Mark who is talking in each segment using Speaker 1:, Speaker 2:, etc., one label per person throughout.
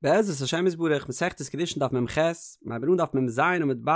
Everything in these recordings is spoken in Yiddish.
Speaker 1: בעזרת השם יתברך מסכת קידושין דף מ"ח, מ'הייבן אן דף מ"ז עמוד ב',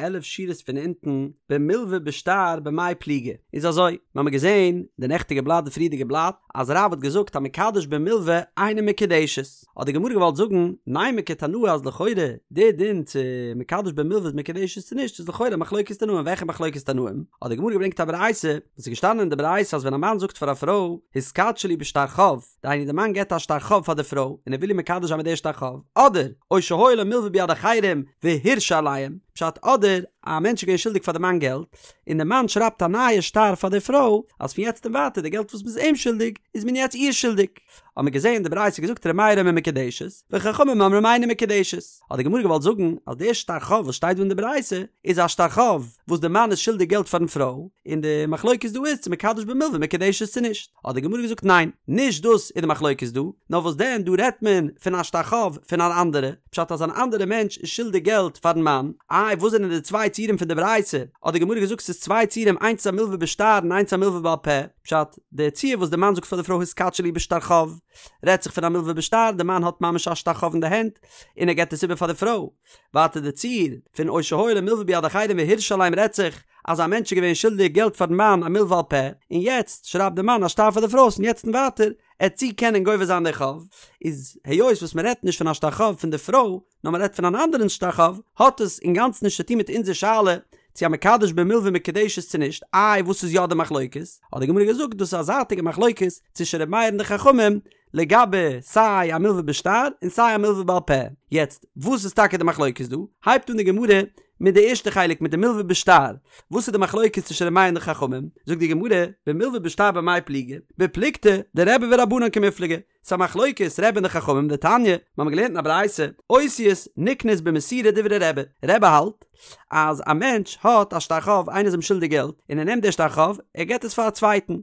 Speaker 1: 11 שורות פון אונטן, במלווה בשטר במאי פליגי. איז אזוי, מ'האמיר געזען די נעכטיגע בלאט די פריערדיגע בלאט, אז רב האט געזאגט המקדש במלווה אינה מקודשת. האט די גמרא געוואלט זאגן, נימא כתנאי אז לכאורה די דין צו מקדש במלווה איז מקודשת צו נישט איז לכאורה מחלוקת תנאים, וועלכע מחלוקת תנאים? האט די גמרא געברענגט א ברייתא, וואס איז געשטאנען אין די ברייתא אז ווען א מאן זאגט פאר א פרוי, התקדשי לי בשטר חוב, דהיינו די מאן געבט א שטר חוב פאר די פרוי און ער וויל איר מקדש זיין מיט די שטר חוב, אדער או שהיה לו מלווה ביד אחרים והרשה עליהם, פשט אדער א מענטש איז געווען שולדיג פאר די מאן געלט, און די מאן שרייבט א נייע שטר פאר די פרוי אז פון יעצט און ווייטער די געלט וואס מ'איז אים שולדיג איז מען יעצט איר שולדיג. האט מען געזען די ברייתא געזאגט ר' מאיר אומר מקודשת, וחכמים אומרים אינה מקודשת. האט די גמרא געוואלט זאגן אז די שטר חוב וואס שטייט דא אין די ברייתא איז א שטר חוב וואס די מאן איז שולדיג געלט פארן פרוי, און די מחלוקת דא איז צו מקדש במלווה מקודשת צו נישט. האט די גמרא געזאגט ניין, נישט דאס איז די מחלוקת דא, נאר וואס דען דא רעדט מען פון א שטר חוב פון אן אנדערע, פשט אז אן אנדערע מענטש איז שולדיג געלט פארן מאן, איי וואס זענען די צוויי ציורים פון די ברייתא, האט די גמרא געזאגט ס'איז צוויי ציורים איינס איז א מלווה בשטר און איינס א מלווה בעל פה, פשט, די ציור וואס די מאן זאגט פאר די פרוי התקדשי לי בשטר חוב, רעדט זיך פון א מלווה בשטר, די מאן האט ממש א שטר חוב אין די הענט, און ער געבט עס איבער פאר די פרוי. ווייטער די ציור פון או שהיה לו מלווה ביד אחרים והרשה עליהם רעדט זיך אז א מענטש איז געווען שולדיג געלט פארן מאן א מלווה על פה, און יעצט שרייבט די מאן א שטר פאר די פרוי אז פון יעצט און ווייטער עט זי קענען גובה זיין די חוב, איז היות וואס מען רעדט נישט פון א שטר חוב פון די פרוי, נאר מען רעדט פון אן אנדערן שטר חוב, האט עס אינגאנצן נישט צו טון מיט אונזער שאלה צו המקדש במלווה מקודשת צו נישט, איי וואס איז יא די מחלוקת? האט די גמרא געזאגט דאס איז א זייטיגע מחלוקת צווישן ר' מאיר און די חכמים לגבי סיי א מלווה בשטר און סיי א מלווה בעל פה, יעצט וואס איז טאקע די מחלוקת דא? הייבט אן די גמרא מיט די ערשטע חלק מיט די מלווה בשטר, וואס איז די מחלוקת צווישן ר' מאיר און די חכמים? זאגט די גמרא, במלווה בשטר במאי פליגי? בפלוגתא דרבי ורבנן קמיפלגי, ס'איז א מחלוקת רבי און די חכמים דתניא, מיר האבן געלערנט אין א ברייתא, אותיות נקנות במסירה דברי רבי, רבי האלט אז א מענטש האט א שטר חוב איינער איז אים שולדיג געלט און ער נעמט די שטר חוב ער געבט עס פאר א צווייטן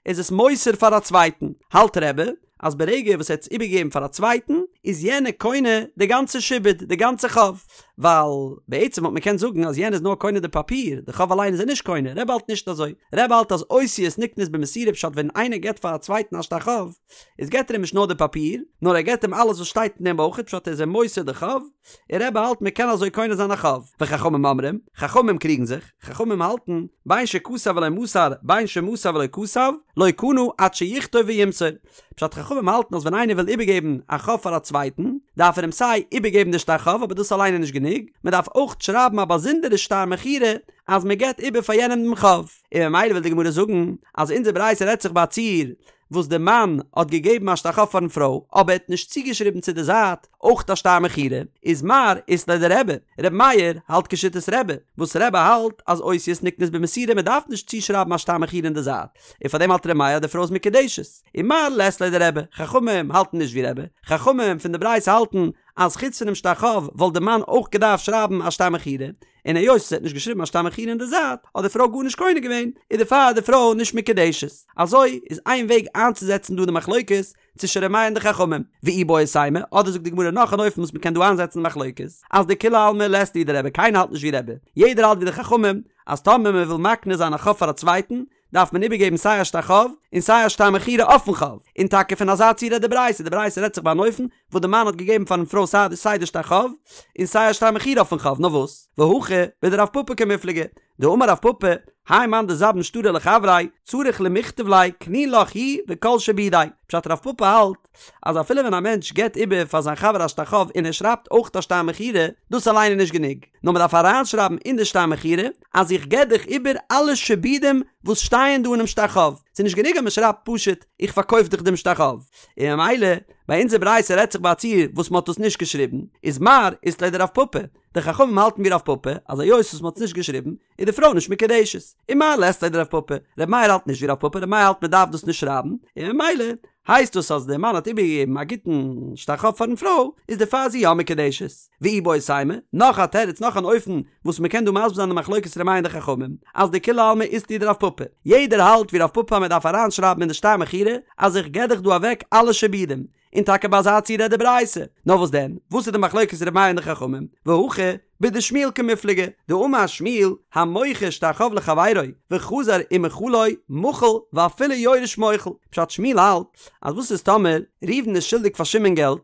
Speaker 1: איז עס מוסר פאר א צווייטן, האלט רבי אז ברגע וואס ער האט עס איבערגעגעבן פאר א צווייטן איז יענער קונה די גאנצע שעבוד די גאנצע חוב, ווייל בעצם וואלט מען קענט זאגן אז יענער איז נאר קונה די פאפיר, די חוב אליין איז ער נישט קונה, רבי האלט נישט אזוי, רבי האלט אז אותיות נקנות במסירה פשט ווען איינער געבט פאר א צווייטן א שטר חוב איז געבט ער אים נישט נאר די פאפיר, נאר ער געבט אים אלעס וואס שטייט אין דעם אויך, פשט ער איז אים מוסר די חוב, און רבי האלט מען קען אזוי קונה זיין א חוב, וחכמים אומרים, חכמים קריגן זיך, חכמים האלטן, בין שכתב ולא מסר, בין שמסר ולא כתב, לא קנה עד שיכתוב וימסור. פשט חכמים האלטן אז ווען איינער וויל איבערגעבן א חוב פאר א צווייטן, דארף ער אים סיי איבערגעבן די שטר חוב אבער דאס אליין איז נישט גענוג, מען דארף אויך שרייבן א באזונדערע שטר מכירה אז מען געבט איבער פאר יענעם דעם חוב. און ממילא וויל די גמרא זאגן אז אונזער ברייתא רעדט זיך ביי א ציור וואס די מאן האט געגעבן א שטר חוב פארן פרוי אבער ער האט נישט צוגעשריבן צו די זייט אויך א שטר מכירה, איז מר אית ליה דרבי, ר' מאיר האלט כשיטת רבי, וואס רבי האלט אז אותיות נקנות במסירה מען דארף נישט צושרייבן א שטר מכירה אין די זייט, און פארדעם האלט ר' מאיר אז די פרוי איז מקודשת, און מר לית ליה דרבי, חכמים האלטן נישט ווי רבי, חכמים פון די ברייתא האלטן אז חוץ פונעם שטר חוב וואלט די מאן אויך געדארפט שרייבן א שטר מכירה, און היות ער האט נישט געשריבן א שטר מכירה אין די זייט האט די פרוי גארנישט קונה געווען, איז דערפאר די פרוי נישט מקודשת. אזוי איז איין וועג איינצוזעצן דא די מחלוקת צווישן ר' מאיר און די חכמים. ואיבעית אימא, אדער זאגט די גמרא נאך אן אופן וואס מ'קען דא איינזעצן די מחלוקת, אז דכולי עלמא לית להו דרבי קיינער האלט נישט ווי רבי, יעדער האלט ווי די חכמים, אז טאמער מ'וויל מקנה זיין א חוב פאר א צווייטן, דארף מען איבערגעבן סיי א שטר חוב און סיי א שטר מכירה אויפן חוב, און טאקע פון אזא ציור רעדט די ברייתא, די ברייתא רעדט זיך ביי אן אופן וואס די מאן האט געגעבן פארן פרוי סיי די שטר חוב און סיי א שטר מכירה אויפן חוב, נאר וואס? והכא בדרב פפא קמיפלגי, דאמר רב פפא, האי מאן דזבין שטרא לחבריה, צריך למכתב ליה קני לך הוא וכל שעבודיה, פשט רב פפא האלט אז אפילו ווען א מענטש געבט איבער פאר זיין חבר א שטר חוב און ער שרייבט אויך א שטר מכירה, דאס אליין איז נישט גענוג, נאר מען דארף אריינשרייבן אין די שטר מכירה אז איך געב דיך איבער אלע שעבודים וואס שטייען דא אינעם שטר חוב, ס'איז נישט גענוג אז מען שרייבט פשוט איך פארקויף דיך דעם שטר חוב, און ממילא ביי אונזער ברייתא רעדט זיך ביי א ציור וואס מען האט דאס נישט געשריבן, איז מר אית ליה דרב פפא, די חכמים האלטן ווי רב פפא אז היות וואס מען האט עס נישט געשריבן איז די פרוי נישט מקודשת, און מר לית ליה דרב פפא, ר' מאיר האלט נישט ווי רב פפא, ר' מאיר האלט מען דארף דאס נישט שרייבן, און ממילא הייסט דאס אז דער מאן האט איבערגעגעבן א גוטן שטר חוב פארן פרוי, איז דערפאר זי יא מקודשת. ואיבעית אימא, נאך א תירוץ נאך אן אופן וואס מען קען דא מסביר זיין די מחלוקת ר' מאיר און די חכמים, אז דכולי עלמא אית להו דרב פפא, יעדער האלט ווי רב פפא אז מען דארף אריינשרייבן אין די שטר מכירה אז איך געב דיך דא אוועק אלע שעבודים, און טאקע ביי אזא ציור רעדט די ברייתא. נאר וואס דען? וואס איז די מחלוקת ר' מאיר און די חכמים? והכא. בדשמואל קמיפלגי, דאמר שמואל, המוכר שטר חוב לחבירו וחזר ומחלו מחול ואפילו יורש מוחל, פשט שמואל האלט אז וואס איז טאמער ראובן איז שולדיג פאר שמעון געלט,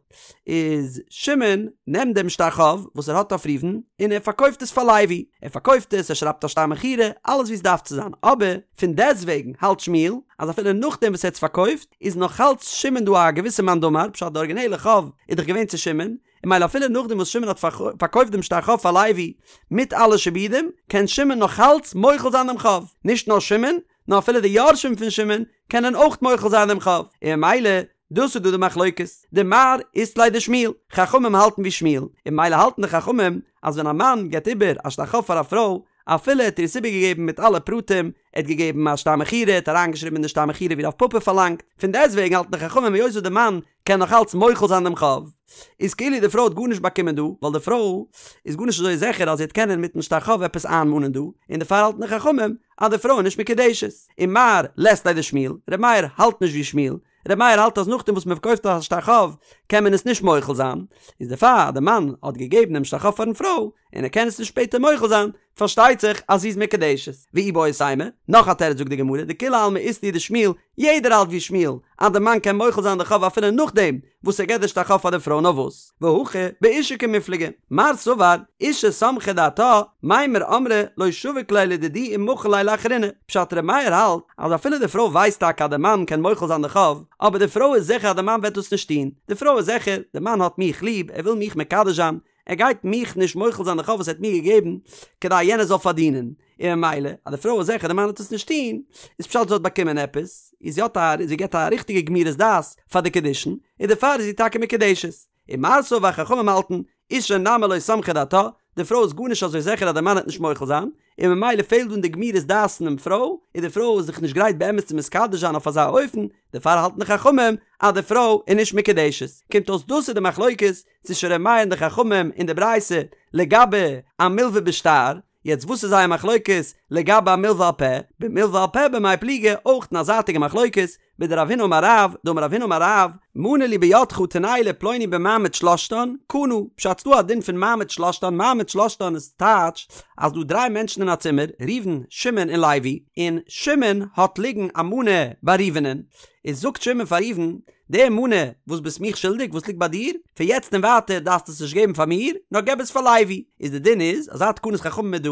Speaker 1: איז שמעון נעמט דעם שטר חוב וואס ער האט אויף ראובן און ער פארקויפט עס פאר לוי, ער פארקויפט עס, ער שרייבט א שטר מכירה, אלעס ווי עס דארף צו זיין, אבער פון דעסטוועגן האלט שמואל אז אפילו נאכדעם וואס ער האט עס פארקויפט איז נאכאלץ שמעון דא א געוויסע מאן דאמר, פשט די ארגינעלע חוב איז דאך געווען צו שמעון, און ממילא אפילו נאכדעם וואס שמעון האט פארקויפט דעם שטר חוב פאר לוי מיט אלע שעבודים, קען שמעון נאכאלץ מוחל זיין דעם חוב, נישט נאר שמעון, נאר אפילו די יורשים פון שמעון קענען אויך מוחל זיין דעם חוב, און ממילא דאס איז דא די מחלוקת, דמר אית ליה דשמואל, חכמים האלטן ווי שמואל, און ממילא האלטן די חכמים אז ווען א מאן געבט איבער א שטר חוב פאר א פרוי, אפילו ער האט איר עס איבערגעגעבן מיט אלע פרטים, ער האט געגעבן א שטר מכירה, ער האט אריינגעשריבן אין די שטר מכירה ווי רב פפא פארלאנגט, פון דעסטוועגן האלטן די חכמים היות וואס די מאן קען נאך אלץ מוחל זיין דעם חוב, איז כאילו די פרוי האט גארנישט באקומען דא, ווייל די פרוי איז גארנישט אזוי זיכער אז זי וועט קענען מיטן שטר חוב עפעס איינמאנען דא, און דערפאר האלטן די חכמים אז די פרוי איז נישט מקודשת. ומר לית ליה דשמואל, ר' מאיר האלט נישט ווי שמואל, ר' מאיר האלט אז נאכדעם וואס מען פארקויפט א שטר חוב קען מען עס נישט מוחל זיין, איז דערפאר אז די מאן האט געגעבן דעם שטר חוב פארן פרוי און ער קען עס נישט שפעטער מוחל זיין, פארשטייט זיך אז זי איז מקודשת. ואיבעית אימא, נאך א תירוץ זאגט די גמרא, דכולי עלמא אית להו דשמואל, יעדער האלט ווי שמואל, אז די מאן קען מוחל זיין די חוב אפילו נאכדעם וואס ער געבט די שטר חוב פאר די פרוי נאר וואס, והכא באשה קמיפלגי, מר סבר, אשה סמכה דעתה, מימר אמרה לא שביק ליה לדידי ומחיל ליה לאחריני, פשט ר' מאיר האלט אז אפילו די פרוי ווייסט טאקע אז די מאן קען מוחל זיין די חוב, אבער די פרוי איז זיכער אז די מאן וועט דאס נישט טון, די פרוי איז זיכער, די מאן האט מיך ליב, ער וויל מיך מקדש זיין, ער גייט מיך נישט מוחל זיין די חוב וואס ער האט מיר געגעבן כדי יענער זאל פארדינען, און ממילא אז די פרוי איז זיכער די מאן וועט עס נישט טון, איז פשט זי האט באקומען עפעס, איז זי האט א זי געבט א ריכטיגע גמירות דעת פאר די קידושין, און דערפאר איז זי טאקע מקודשת. ומר סבר חכמים האלטן, אשה נמי לא סמכה דעתה, די פרוי איז גארנישט אזוי זיכער אז די מאן וועט נישט מוחל זיין, און ממילא פעלט דא אין די גמירות דעת פונעם פרוי, און די פרוי איז זיך נישט גרייט באמת צו מתקדש זיין אויף אזא אופן, דערפאר האלטן די חכמים אז די פרוי איז נישט מקודשת. קומט אויס דאס איז די מחלוקת צווישן ר' מאיר און די חכמים אין די ברייתא לגבי א מלווה בשטר, יעצט וואס איז זייער מחלוקת לגבי א מלווה על פה? במלווה על פה במאי פליגי, אויך אין א זייטיגע מחלוקת, בדרב הונא אמר רב, דאמר רב הונא אמר רב, מנה לי בידך תנהו לפלוני במעמד שלשתן, קנה, פשט ס'דא א דין פון מעמד שלשתן, מעמד שלשתן איז טייטש אז דא דריי מענטשן אין א צימער, ראובן, שמעון און לוי, און שמעון האט ליגן א מנה ביי ראובנ'ען, איז זאגט שמעון פאר ראובן, די מנה וואס ביסט מיך שולדיג וואס ליגט ביי דיר, פון יעצט און ווייטער דארפסטו עס נישט געבן פאר מיר, נאר געב עס פאר לוי. איז די דין איז, אזא תקנת חכמים איז דא,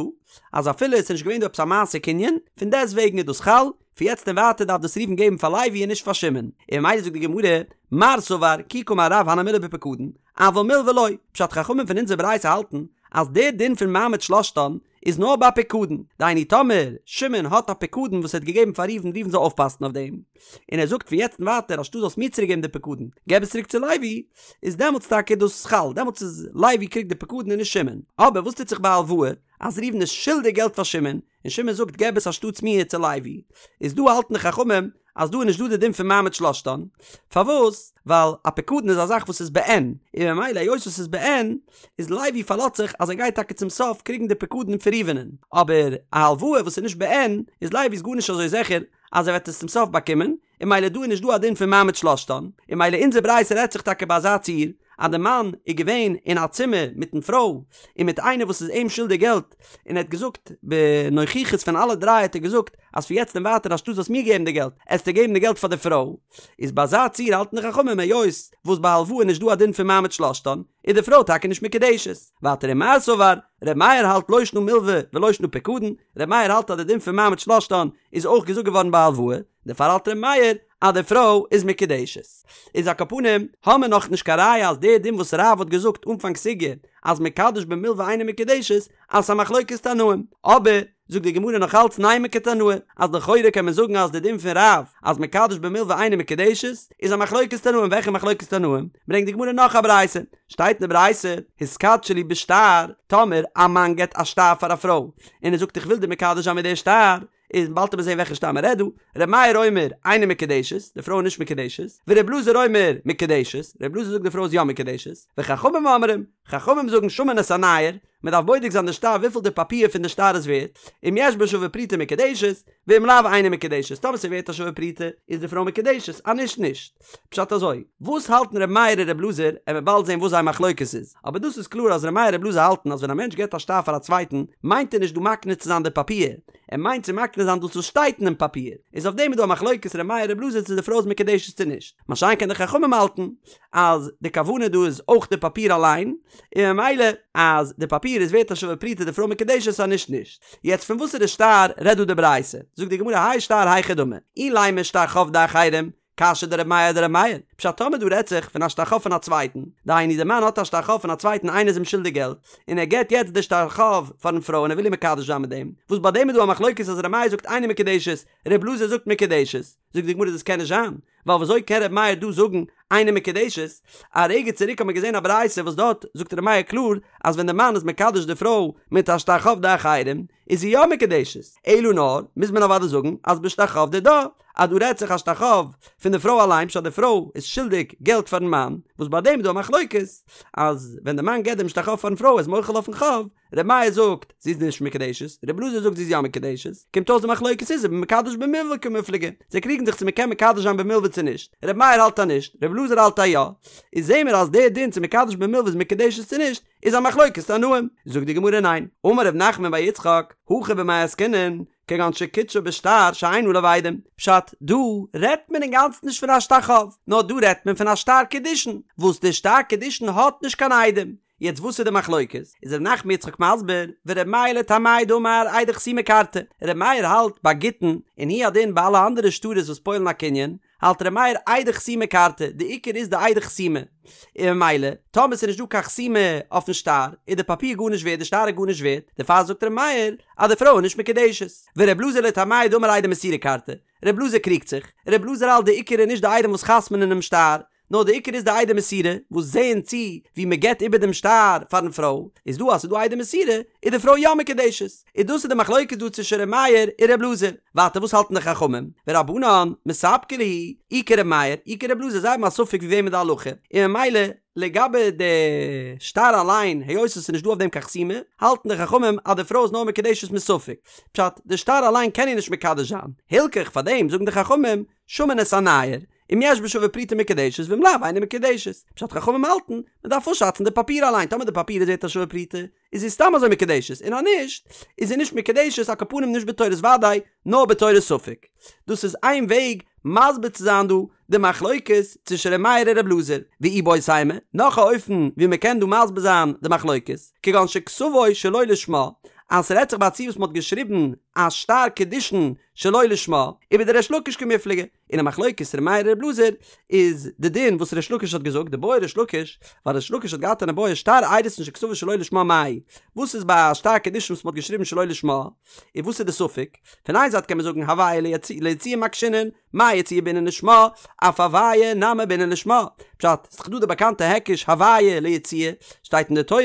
Speaker 1: אז אפילו עס איז נישט געווען דא עפעס א מעשה קנין, פון דעסט וועגן איז דאס חל, פון יעצט און ווייטער דארף דאס ראובן געבן פאר לוי און נישט פאר שמעון. און ממילא זאגט די גמרא, מר סבר, כי קאמר רב הני מילי בפקדון, אבל מלווה לא, פשט חכמים פון אונזער ברייתא האלטן, אז דער דין פון מעמד שלשתן איז נאר ביי פיקדון, דהיינו טאמער שמעון האט א פיקדון וואס ער האט געגעבן פאר ראובן ראובן זאל אויפפאסן אויף דעם, און ער זאגט פון יעצט און ווייטער אנשטאט זאלסט מיר צוריק געבן די פיקדון, געב עס צוריק צו לוי, איז דעמאלטס טאקע דאס חל, דעמאלטס איז לוי קריגט די פיקדון און נישט שמעון. אבער וואס טוט זיך ביי הלוואה, אז ראובן איז שולדיג געלט פאר שמעון, און שמעון זאגט געב עס אנשטאטס מיר צו לוי, איז דא האלטן די חכמים אז דא איז נישט דא די דין פון מעמד שלשתן, פארוואס? ווייל א פיקדון איז א זאך וואס איז בעין, און ממילא היות עס איז בעין, איז לוי פארלאזט זיך אז ער גייט טאקע צום סוף קריגן די פיקדון פון ראובנ'ען, אבער א הלוואה וואס איז נישט בעין, איז לוי איז גארנישט אזוי זיכער אז ער וועט עס צום סוף באקומען, און ממילא דא איז נישט דא א דין פון מעמד שלשתן, און ממילא אונזער ברייתא רעדט זיך טאקע ביי אזא ציור, אז די מאן איז געווען אין א צימער מיטן פרוי, און מיט איינער וואס איז אים שולדיג געלט, און ער האט געזאגט בנוכחות פון אלע דריי האט ער געזאגט אז פון יעצט און ווייטער אנשטאט זאלסט מיר געבן די געלט, עסטו געבן די געלט פאר די פרוי, איז ביי אזא ציור האלטן די חכמים היות וואס ביי הלוואה איז נישט דא א דין פון מעמד שלשתן, איז די פרוי טאקע נישט מקודשת. ווייטער ומר סבר, ר' מאיר האלט לא שנא מלווה ולא שנא פיקדון, ר' מאיר האלט אז די דין פון מעמד שלשתן איז אויך געזאגט געווארן ביי הלוואה, דערפאר האלט ר' מאיר אז די פרוי איז מקודשת. איז על כל פנים, האמיר נאך נישט קיין ראיה אז די דין וואס רב האט געזאגט אנפאנג סוגיא אז מקדש במלווה אינה מקודשת אז ס'איז א מחלוקת תנאים. אבער, זאגט די גמרא נאך אלץ נימא כתנאי, אז לכאורה קען מען זאגן אז די דין פון רב אז מקדש במלווה אינה מקודשת איז א מחלוקת תנאים, וועלכע מחלוקת תנאים? ברענגט די גמרא נאך א ברייתא, שטייט אין די ברייתא, התקדשי לי בשטר, טאמער א מאן געבט א שטר פאר א פרוי, און ער זאגט איך וויל דיר מקדש זיין מיט די שטר, איז באלד וועט מען זעהן וועלכע שטר מען רעדט דא, ר' מאיר אומר אינה מקודשת, די פרוי איז נישט מקודשת, ור' אלעזר אומר מקודשת, ר' אלעזר זאגט די פרוי איז יא מקודשת, וחכמים אומרים, חכמים זאגן שמין את הנייר, מען דארף בודק זיין די שטר וויפיל די פאפיר פון די שטר איז ווערט, אם יש בה שווה פרוטה מקודשת, ואם לאו אינה מקודשת, טאמער ס'איז ווערט א שווה פרוטה איז די פרוי מקודשת, אז נישט נישט. פשט אזוי, וואס האלטן ר' מאיר און ר' אלעזר, עמיר באלד זען וואס זייער מחלוקת איז, אבער דאס איז קלאר אז ר' מאיר און ר' אלעזר האלטן אז ווען א מענטש געבט א שטר פאר א צווייטן מיינט ער נישט דא מקנה צו זיין די פאפיר, ער מיינט צו מקנה זיין דאס וואס שטייט אינעם פאפיר, איז אויף דעם איז דא א מחלוקת ר' מאיר ר' אלעזר צו די פרוי איז מקודשת צו נישט, מה שאין כן די חכמים האלטן אז די כוונה דא איז אויך די פאפיר אליין, און ממילא אז די פאפיר איז ווערט א שווה פרוטה די פרוי מקודשת אז נישט נישט. יעצט פון וואסערע שטר רעדט דא די ברייתא? זאגט די גמרא האי שטר היכי דמי, אילימא שטר חוב דאחרים, קשיא דר' מאיר אדר' מאיר, פשט טאמער דא רעדט זיך פון א שטר חוב פון א צווייטן, דהיינו די מאן האט א שטר חוב פון א צווייטן איינער איז אים שולדיג געלט, און ער געט יעצט די שטר חוב פארן פרוי און ער וויל איר מקדש זיין מיט דעם, וואס ביי דעם איז דא א מחלוקת אז ר' מאיר זאגט אינה מקודשת, ר' אלעזר זאגט מקודשת, זאגט די גמרא דאס קען נישט זיין, ווייל וויאזוי קען ר' מאיר דא זאגן אינה מקודשת, א רגע צוריק האט מען געזען א ברייתא וואס דארט זאגט ר' מאיר קלאר אז ווען די מאן איז מקדש די פרוי מיט א שטר חוב דאחרים איז זי יא מקודשת, אלא נאר מוז מען אוודאי זאגן אז בשטר חוב דידה, אז דא רעדט זיך א שטר חוב פון די פרוי אליין פשט די פרוי איז שולדיג געלט פארן מאן, וואס ביי דעם איז דא א מחלוקת אז ווען די מאן געבט דעם שטר חוב פארן פרוי איז מוחל אויפן חוב, ר' מאיר זאגט זי איז נישט מקודשת, ר' אלעזר זאגט זי איז יא מקודשת, קומט אויס די מחלוקת איז ובמקדש במלוה קמיפלגי, זיי קריגן זיך צו מען קען מקדש זיין במלוה צו נישט, ר' מאיר האלט אז נישט, ר' אלעזר האלט אז יא, איז זעהן מיר אז דער דין צו מקדש במלוה איז מקודשת צו נישט, איז א מחלוקת תנאים, זאגט די גמרא ניין, אמר ר' נחמן בר יצחק, הכא במאי עסקינן, כגון שקידשה בשטר שאין עליו עדים. פשט, דא רעדט מען אינגאנצן נישט פון א שטר חוב, נאר דא רעדט מען פון א שטר קידושין, וואס די שטר קידושין האט נישט קיין עדים. יעצט וואס איז די מחלוקת? איז ר' נחמן יצחק מסביר, ור' מאיר לטעמיה דאמר עדי חתימה כרתי, ר' מאיר האלט ביי גיטין, און הוא הדין ביי אלע אנדערע שטרות וואס פועל'ן א קנין, האלט ר' מאיר עדי חתימה כרתי, די עיקר איז די עדי חתימה, און ממילא טאמער ס'איז נישט דא קיין חתימה אויפן שטר, איז די פאפיר גארנישט ווערט, די שטר איז גארנישט ווערט, דערפאר זאגט ר' מאיר אז די פרוי איז נישט מקודשת. ור' אלעזר לטעמיה דאמר עדי מסירה כרתי, ר' אלעזר קריגט זיך, ר' אלעזר האלט די עיקר איז נישט די עדים וואס חתמ'נען אינעם שטר, נאר די עיקר איז די עדי מסירה וואס זעען צו ווי מען געבט איבער דעם שטר פארן פרוי, איז דא אז ס'איז דא עדי מסירה איז די פרוי יא מקודשת, איז דאס איז די מחלוקת דא צווישן ר' מאיר און ר' אלעזר, ווייטער וואס האלטן די חכמים, ורבנן מספקא להו, אי כר' מאיר אי כר' אלעזר זיי האבן א ספק ווי וועמען די הלכה, און ממילא לגבי די שטר אליין היות עס איז נישט דא אויף דעם קיין חתימה, האלטן די חכמים אז די פרוי איז נאר מקודשת מספק, פשט, די שטר אליין קען איר נישט מקדש זיין, הלכך פאר דעם זאגן די חכמים, שמין את הנייר, אם יש בה שווה פרוטה מקודשת ואם לאו אינה מקודשת. פשט חכמים האלטן, מען דארף אפשאצן די פאפיר אליין, טאמער די פאפיר איז ווערט א שווה פרוטה, איז זי סתם אזוי מקודשת, און אז נישט, איז זי נישט מקודשת, על כל פנים נישט בתורת ודאי, נאר בתורת ספק. דאס איז איין וועג מסביר צו זיין דא די מחלוקת צווישן ר' מאיר און ר' אלעזר. ואיבעית אימא, נאך א אופן ווי מען קען דא מסביר זיין די מחלוקת, כגון שכתבו שלא לשמה, אז ס'רעדט זיך ביי א ציור וואס מען האט געשריבן א שטר קידושין שלא לשמה, ובדריש לקיש קמיפלגי, און א מחלוקת ר' מאיר ר' אלעזר איז די דין וואס ריש לקיש האט געזאגט דבעי ריש לקיש ווייל ריש לקיש האט געהאט אן איבעיא שטר אירוסין שכתבו שלא לשמה מהו וואס איז ביי א שטר קידושין וואס מ'האט געשריבן שלא לשמה און וואס איז די ספק פון איין זייט קען מען זאגן הוויה ליציאה מקשינן מה יציאה בעינן לשמה אף הוויה נמי בעינן לשמה פשט ס'איז דאך דא די באקאנטע היקש הוויה ליציאה שטייט אין די תורה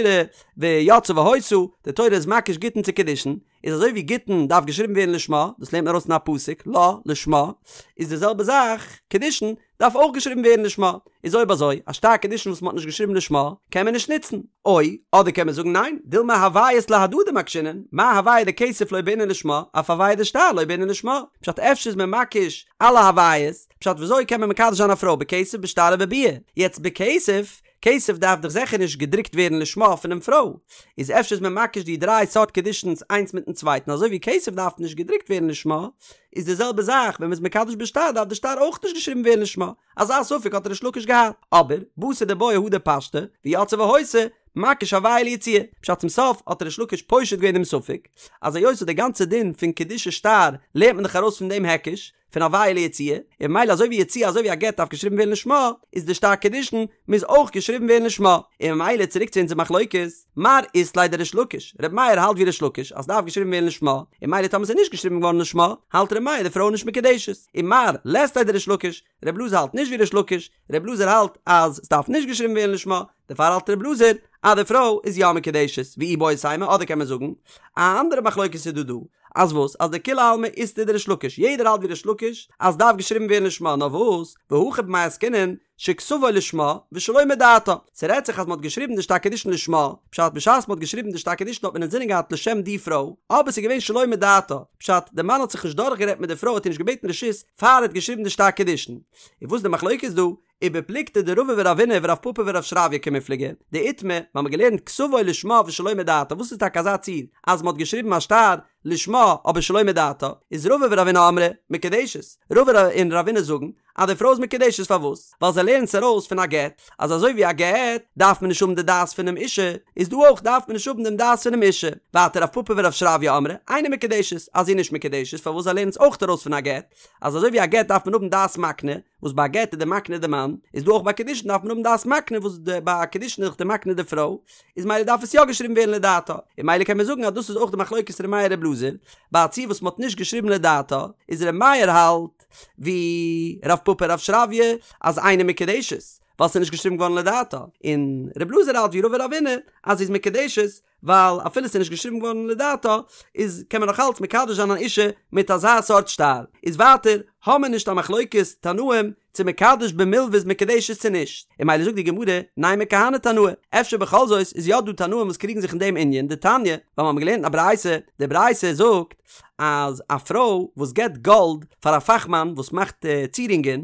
Speaker 1: ויצאה והיתה די תורה איז מקיש גיטין צו קידושין איז אזוי ווי גיטין דארף געשריבן ווערן לשמה, דאס לערנט מען ארויס אין א פסוק, לה, לשמה, איז די זעלבע זאך, קידושין דארף אויך געשריבן ווערן לשמה, איז אויב אזוי, א שטר קידושין וואס מען האט נישט געשריבן לשמה, קען מען נישט נוצן. או, אדער קען מען זאגן ניין, דילמא הוויות להדדי מקשינן, מה הוויה דכסף לא בעינן לשמה, אף הוויה דשטר לא בעינן לשמה, פשט אפשר איז מען מקיש אלע הוויות, פשט וויאזוי קען מען מקדש זיין א פרוי בכסף בשטר ובביאה, יעצט בכסף, כסף דארף דאך זיכער נישט געדרוקט ווערן לשמה פונעם פרוי, איז אפשר איז מען מקיש די דריי סארט קידושין'ס איינס מיטן צווייטן אזוי ווי כסף דארף נישט געדרוקט ווערן לשמה, איז די זעלבע זאך ווען מ'איז מקדש בשטר דארף די שטר אויך נישט געשריבן ווערן לשמה, אזא ספק האט ריש לקיש געהאט, אבער בתר דבעיא הדר פשטה, ויצאה והיתה, מקיש הוויה ליציאה, פשט צום סוף האט ריש לקיש פושט געווען דעם ספק, אז היות די גאנצע דין פון קידושי שטר לערנט מען דאך ארויס פון דעם היקש, פון הוויה ליציאה, און ממילא אזוי ווי יציאה אזוי ווי א גט דארף געשריבן ווערן לשמה, איז די שטר קידושין מוז אויך געשריבן ווערן לשמה, און ממילא צוריק צו אונזער מחלוקת, מר אית ליה דריש לקיש, ר' מאיר האלט ווי ריש לקיש אז ס'דארף געשריבן ווערן לשמה, און ממילא טאמער ס'איז נישט געשריבן געווארן לשמה, האלט ר' מאיר די פרוי איז נישט מקודשת, און מר לית ליה דריש לקיש, ר' אלעזר האלט נישט ווי ריש לקיש, ר' אלעזר האלט אז ס'דארף נישט געשריבן ווערן לשמה, דערפאר האלט ר' אלעזר אז די פרוי איז יא מקודשת, ואיבעית אימא אדער קען מען זאגן א אנדערע מחלוקת איז דא דא. אז וואס? אז דכולי עלמא אית להו דריש לקיש, יעדער האלט ווי ריש לקיש אז ס'דארף געשריבן ווערן לשמה, נאר וואס? והכא במאי עסקינן שכתבו לשמה ושלא מדעתה, ס'רעדט זיך אז מ'האט געשריבן די שטר קידושין לשמה, פשט בשעת מ'האט געשריבן די שטר קידושין האט מען אינזינען געהאט לשם די פרוי, אבער ס'איז געווען שלא מדעתה, פשט די מאן האט זיך נישט דורכגערעדט מיט די פרוי האט איר נישט געבעטן רשות פאר ער האט געשריבן די שטר קידושין. און וואס איז די מחלוקת דא? ובפלוגתא דרבא ורבינא ורב פפא ורב שרביא קמיפלגי, דאיתמר, מ'האמיר געלערנט כתבו לשמה ושלא מדעתה, וואס איז טאקע אזא ציור אז מ'האט געשריבן א שטר לשמה אבער שלא מדעתה, איז רבא ורבינא אמרי מקודשת, רבא און רבינא זאגן אז די פרוי איז מקודשת פארוואס? ווייל זיי לערנען עס ארויס פון א גט, אז אזוי ווי א גט דארף מען נישט האבן די דעת פונעם אישה, איז דא אויך דארף מען נישט האבן דעם דעת פונעם אישה. ווייטער רב פפא ורב שרביא אמרי אינה מקודשת, אז זי איז נישט מקודשת פארוואס זיי לערנען עס אויך ארויס פון א גט, אז אזוי ווי א גט דארף מען האבן דעת מקנה, וואס ביי א גט איז די מקנה די מאן, איז דא אויך ביי קידושין דארף מען האבן דעת מקנה וואס די ביי קידושין איז דאך די מקנה די פרוי, איז מילא דארף עס יא געשריבן ווערן לדעתה, און מילא קען מען זאגן אז דאס איז אויך די מחלוקת ר' מאיר ר' אלעזר, ביי א ציור וואס מען האט נישט געשריבן לדעתה, איז ר' מאיר האלט ווי רב פפא רב שרביא אז אינה מקודשת, ווייל ס'איז נישט געשריבן געווארן לדעתה, און ר' אלעזר האלט ווי רבא רבינא אז זי איז מקודשת, ווייל אפילו ס'איז נישט געשריבן געווארן לדעתה, איז קען מען נאך אלץ מקדש זיין אן אישה מיט אזא סארט שטר. איז ווייטער, האמער נישט א מחלוקת תנאים צו מקדש במלוה איז מקודשת צו נישט. און מילא זאגט די גמרא, נימא כהני תנאי, אפשר בכל זאת איז יא דא תנאים וואס קריגן זיך אין דעם ענין, דתניא, ווייל מ'האמער געלערנט אין א ברייתא, די ברייתא זאגט אז א פרוי וואס געבט גאלד פאר א פאכמאן וואס מאכט צירונגען,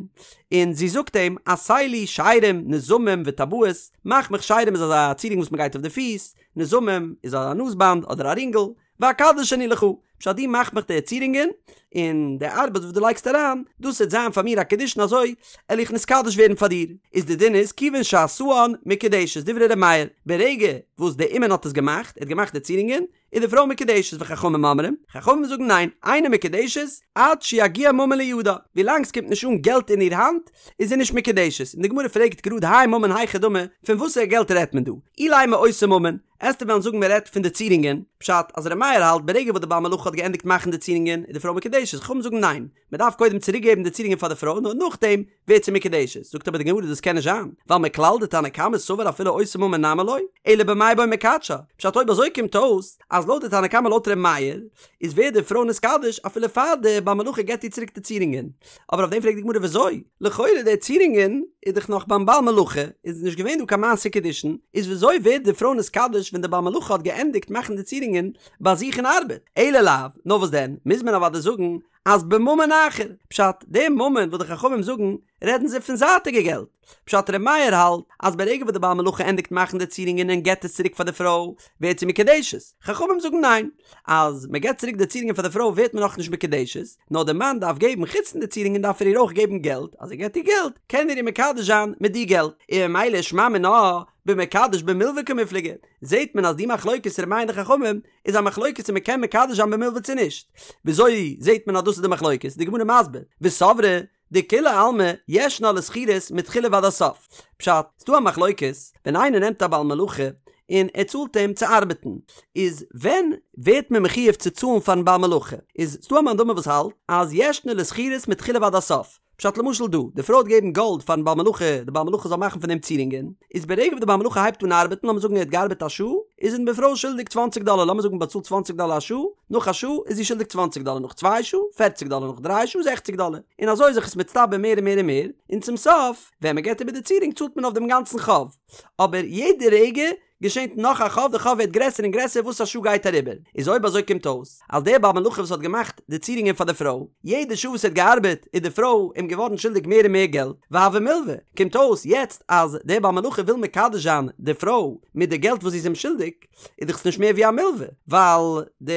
Speaker 1: און זי זאגט אים, עשה לי שיירים, נזמים וטבעות, מאך מיך שיירים איז אזא צירונג וואס מ'גייט אויף די פיס, נזמים איז א נאז באנד אדער א רינגל, ואקדש אני לך, פשט דו מאך מיך די צירונגען, און די ארבעט וואס דו לייגסט אריין, דאס וועט זיין פאר מיר א קידושין אזוי על איך נתקדש ווערן פאר דיר, איז די דין איז כיוון שעשאן מקודשת דברי ר' מאיר, ברגע וואס די אומן האט עס געמאכט, ער האט געמאכט די צירונגען, איז די פרוי מקודשת וחכמים אומרים, חכמים זאגן ניין, אינה מקודשת עד שיגיע ממון לידה, ווילאנג ס'קומט נישט אן געלט אין איר האנט איז זי נישט מקודשת, און די גמרא פרעגט גראד האי ממון היכי דמי, פון וואסערע געלט רעדט מען דא? אילימא אותו ממון, עסטו וועלן זאגן מען רעדט פון די צירונגען, פשט אז ר' מאיר האלט ברגע וואס די בעל מלאכה האט געענדיגט מאכן די צירונגען איז די פרוי מקודשת, חכמים זאגן ניין, מען דארף קודם צוריק געבן די צירונגען פאר די פרוי נאר נאכדעם ווערט זי מקודשת, זאגט אבער די גמרא דאס קען נישט זיין, ווייל מכלל דתנא קמא סבר אפילו אותו ממון נמי לא, אלא במאי בעי מקדשה, פשט אויב אזוי קומט אויס אז לויט די תנא קמא לויט ר' מאיר איז ווערט די פרוי נתקדש אפילו פאר די בעל מלאכה געבט איר צוריק די צירונגען, אבער אויף דעם פרעגט די גמרא וויאזוי? לכאורה די צירונגען איז דאך נאך ביים בעל מלאכה, איז נישט געווען דא קיין מעשה קידושין, איז וויאזוי ווערט די פרוי נתקדש ווען די בעל מלאכה האט געענדיגט מאכן די צירונגען ביי זיך אין ארבעט? אלא לאו, נאר וואס דען, מוז מען אוודאי זאגן אז בממון אחר, פשט, די ממון וואס די חכמים זאגן, רעדן זיי פון זייטיגע געלט. פשט, ר' מאיר האלט אז ברגע וואס די בעל מלאכה ענדיגט מאכן די צירונגען און געבט עס צוריק פאר די פרוי, ווערט זי מקודשת. חכמים זאגן ניין, אז מען געבט צוריק די צירונגען פאר די פרוי ווערט מען נאכנישט מקודשת, נאר די מאן דארף געבן, חוץ פון די צירונגען דארף ער איר אויך געבן געלט, אז ער געבט איר געלט, קען ער איר מקדש זיין מיט די געלט. און ממילא שמע מינה, במקדש במלוה קמיפלגי, זעט מען אז די מחלוקת ר' מאיר און די חכמים, איז א מחלוקת צו מ'קען מקדש זיין במלוה צו נישט. וויאזוי זעהט מען אז דאס איז די מחלוקת? די גמרא מסביר, וסברי דכולי עלמא ישנה לשכירות מתחילה ועד הסוף. פשט, ס'דא א מחלוקת, ווען איינער נעמט א בעל מלאכה און ער צאלט אים צו ארבעטן, איז ווען ווערט מען מחויב צו צאלן פארן בעל מלאכה? איז ס'דא א מאן דאמר וואס האלט אז ישנה לשכירות מתחילה ועד הסוף. פשט למשל דא, די פרוי האט געגעבן גאלד פארן בעל מלאכה, די בעל מלאכה זאל מאכן פון דעם צירונגען, איז ברגע וואס די בעל מלאכה הייבט אן ארבעטן, לאמיר זאגן ער האט געארבעט א שעה, איז אים די פרוי שולדיג צוואנציג דאלער, לאמיר זאגן באצאלט צוואנציג דאלער א שעה, נאך א שעה איז זי שולדיג צוואנציג דאלער, נאך צוויי שעה, פערציג דאלער, נאך דריי שעה, זעכציג דאלער, און אזוי איז זיך עס מצטבר מער און מער און מער, און צום סוף, ווען מען געבט איבער די צירונג צאלט מען אויף דעם גאנצן חוב, אבער יעדע רגע געשענט נאך א חוב, די חוב ווערט גרעסער און גרעסער וואס א שעה גייט אריבער, איז אויב אזוי קומט אויס אז דער בעל מלאכה וואס האט געמאכט די צירונגען פאר די פרוי, יעדע שעה וואס ער האט געארבעט איז די פרוי אים געווארן שולדיג מער און מער געלט, והוה מלווה, קומט אויס יעצט אז דער בעל מלאכה וויל מקדש זיין די פרוי מיט די געלט וואס זי איז אים שולדיג, איז דאך עס נישט מער ווי א מלווה, ווייל די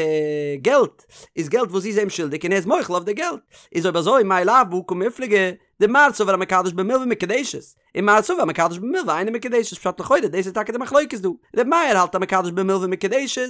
Speaker 1: געלט איז געלט וואס זי איז אים שולדיג און ער איז מוחל אויף די געלט, איז אויב אזוי מאי לאו בהא קמיפלגי, דמר סבר המקדש במלווה מקודשת, און מר סבר המקדש במלווה אינה מקודשת פשט לכאורה דאס איז טאקע די מחלוקת דא, ר' מאיר האלט המקדש במלווה מקודשת,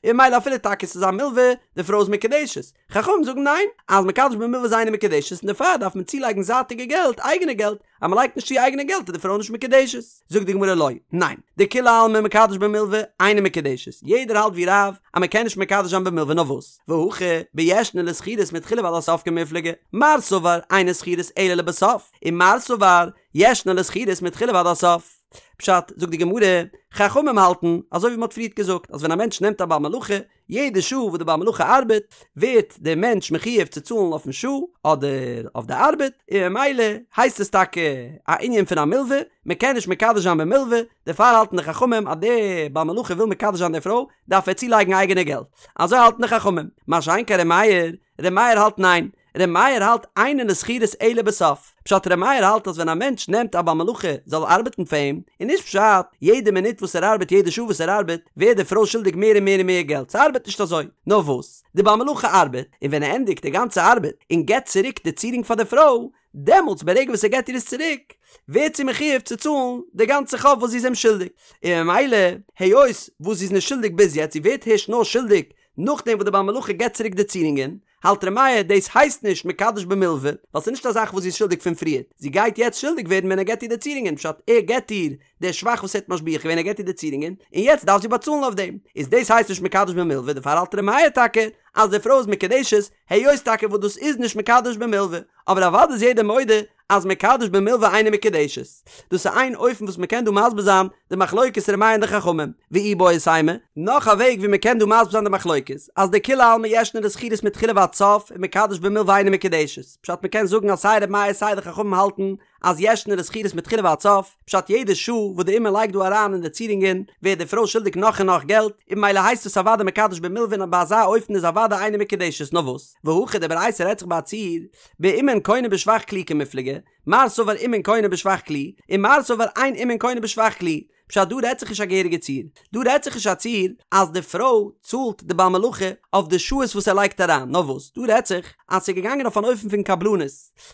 Speaker 1: און ממילא אפילו טאקע ס'איז א מלווה, די פרוי איז מקודשת, חכמים זאגן ניין, אז מקדש במלווה איז אינה מקודשת און דערפאר דארף מען צולייגן זייטיגע געלט, אייגענע געלט, אז מ'לייגט נישט צו אייגענע געלט איז די פרוי נישט מקודשת. זאגט די גמרא לא, ניין, דכולי עלמא מקדש במלווה אינה מקודשת, יעדער האלט ווי רב אז מ'קען נישט מקדש זיין במלווה נאר וואס, והכא בישנה לשכירות מתחילה ועד הסוף קמיפלגי, מר סבר אינה שכירות אלא לבסוף, און מר סבר ישנה לשכירות מתחילה ועד הסוף. פשט, זאגט די גמרא, חכמים האלטן, אזוי ווי מען האט פריערט געזאגט, אז ווען א מענטש נעמט א בעל מלאכה, יעדע שעה וואס די בעל מלאכה ארבעט, ווערט דער מענטש מחויב צו צאלן אויפן שעה, אדער אויף די ארבעט, און ממילא הייסט עס טאקע א ענין פון א מלווה, מען קען נישט מקדש זיין במלווה, דערפאר האלטן די חכמים אז דער בעל מלאכה וויל מקדש זיין די פרוי, דארף ער צולייגן אייגענע געלט. אזוי האלטן די חכמים. מה שאין כן ר' מאיר, ר' מאיר האלט ניין, ר' מאיר האלט אינן לשכירות אלא בסוף. פשט ר' מאיר האלט אז ווען א מענטש נעמט א בעל מלאכה זאל ארבעטן פאר אים, איז נישט פשט יעדע מינוט וואס ער ארבעט יעדע שעה וואס ער ארבעט ווערט די פרוי שולדיג מער און מער און מער געלט, ס'ארבעט נישט אזוי. נאר וואס? די בעל מלאכה ארבעט, און ווען ער ענדיגט די גאנצע ארבעט און געבט צוריק די צירונג פאר די פרוי, דעמאלטס ברגע וואס ער געבט איר עס צוריק, ווערט זי מחויב צו צאלן די גאנצע חוב וואס זי איז אים שולדיג. און ממילא, היות וואס זי איז נישט שולדיג ביז יעצט, זי ווערט הערשט נאר שולדיג נאכדעם וואס די בעל מלאכה געבט צוריק די צירונגען, האלט ר' מאיר דאס הייסט נישט מקדש במלוה, ווייל ס'איז נישט א זאך וואס זי איז שולדיג פון פריערט, זי גייט יעצט שולדיג ווערן ווען ער געבט איר די צירונגען, פשט ער געבט איר די שבח וואס ער האט משביח געווען ער געבט איר די צירונגען, און יעצט דארף זי באצאלן אויף דעם, איז דאס הייסט נישט מקדש במלוה, דערפאר האלט ר' מאיר טאקע אז די פרוי איז מקודשת, היות טאקע וואס דאס איז נישט מקדש במלוה, אבער אוודאי איז יעדער מודה אז מקדש במלוה אינה מקודשת. דאס איז איין אופן וואס מ'קען דא מסביר זיין די מחלוקת ר' מאיר און די חכמים, ואיבעית אימא, נאך א וועג ווי מ'קען דא מסביר זיין די מחלוקת, אז דכולי עלמא ישנה לשכירות מתחילה ועד סוף ומקדש במלוה אינה מקודשת, פשט מ'קען זאגן אז סיי ר' מאיר סיי די חכמים האלטן אז ישנה לשכירות מתחילה ועד סוף, פשט יעדע שעה וואס די אומן לייגט דא אריין אין די צירונגען ווערט די פרוי שולדיג נאך און נאך געלט, און ממילא הייסט עס אוודאי מקדש במלוה און ביי אזא אופן איז אוודאי אינה מקודשת, נאר וואס? והכא די ברייתא רעדט זיך ביי א ציור באומן קונה בשבח כלי קמיפלגי, מר סבר אומן קונה בשבח כלי, און מר סבר אין אומן קונה בשבח כלי, פשט דא רעדט זיך נישט א געהעריגע ציור, דא רעדט זיך נישט א ציור אז די פרוי צאלט די בעל מלאכה אויף די שעות וואס ער לייגט אריין, נאר וואס דא רעדט זיך אז ס'איז געגאנגען אויף אן אופן פון קבלנות,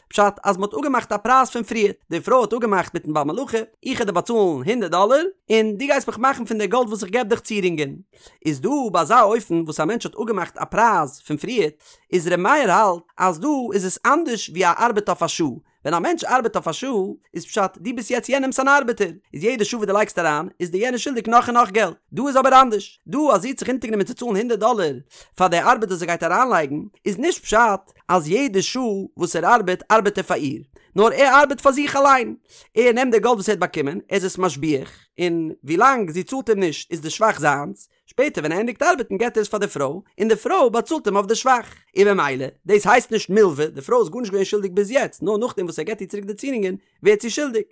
Speaker 1: פשט אז מ'האט אפגעמאכט א פרייז פון פריער, די פרוי האט אפגעמאכט מיטן בעל מלאכה, איך וועל דיר באצאלן הונדערט דאלער, און דו גייסט מיך מאכן פון די גאלד וואס איך געב דיך צירונגען. איז דא ביי אזא אופן וואס א מענטש האט אפגעמאכט א פרייז פון פריער, איז ר' מאיר האלט אז דא איז עס אנדערש ווי א ארבעט אויף א שעה, ווען א מענטש ארבעט אויף א שעה, איז פשט דו ביסט יעצט יענעמס אן ארבעטער, איז יעדע שעה וואס דו לייגסט אריין איז דיר יענער שולדיג נאך און נאך געלט, דא איז אבער אנדערש, דא אז זי האט זיך אונטערגענומען צו צאלן הונדערט דאלער פאר די ארבעט וואס ער גייט אריינלייגן, איז נישט פשט אז יעדע שעה וואס ער ארבעט ארבעט ער פאר איר, נאר ער ארבעט פאר זיך אליין, ער נעמט די גאלד וואס ער האט באקומען, ער איז עס משביח, און ווילאנג זי צאלט אים נישט איז די שבח זיינס, שפעטער ווען ער ענדיגט ארבעטן געט ער עס פאר די פרוי, און די פרוי באצאלט אים אויף די שבח. און במילא, דאס הייסט נישט מלווה, די פרוי איז גארנישט געווען שולדיג ביז יעצט, נאר נאכדעם וואס ער געט איר צוריק די צירונגען ווערט זי שולדיג.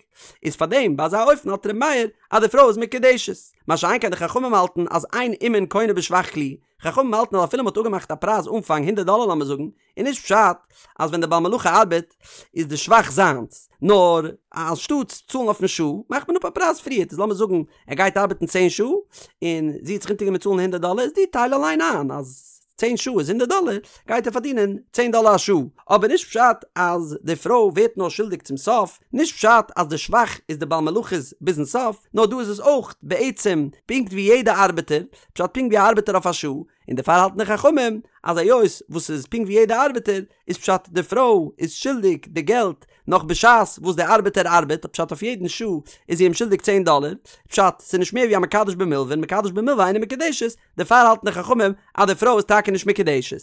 Speaker 1: איז פארדעם ביי אזא אופן האלט ר' מאיר אז די פרוי איז מקודשת. מה שאין כן די חכמים האלטן אז אין אומן קונה בשבח כלי, חכמים האלטן אז אפילו מ'האט אפגעמאכט א פרייז אנפאנג הונדערט דאלער לאמיר זאגן, איז נישט פשט אז ווען דער בעל מלאכה ארבעט איז די שבח זיינס, נאר אנשטאטס צאלן אויפן שעה מאכט מען אפ א פרייז פריערט, איז לאמיר זאגן ער גייט ארבעטן צען שעה און זי האט זיך אונטערגענומען צאלן הונדערט דאלער, איז דו טייל אליין איין אז צען שעה איז הונדערט דאלער, גייט ער פארדינען צען דאלער א שעה, אבער נישט פשט אז די פרוי ווערט נאר שולדיג צום סוף, נישט פשט אז די שבח איז די בעל מלאכה'ס ביזן סוף, נאר דא איז עס אויך בעצם פונקט ווי יעדע ארבעטער, פשט פונקט ווי א ארבעטער אויף א שעה, און דערפאר האלטן די חכמים אז היות וואס ס'איז פונקט ווי יעדע ארבעטער, איז פשט די פרוי איז שולדיג די געלט נאך בשעת וואס די ארבעטער ארבעט, פשט אויף יעדן שעה איז זי אים שולדיג צען דאלער, פשט ס'איז נישט מער ווי א מקדש במלוה און מקדש במלוה אינה מקודשת, דערפאר האלטן די חכמים אז די פרוי איז טאקע נישט מקודשת.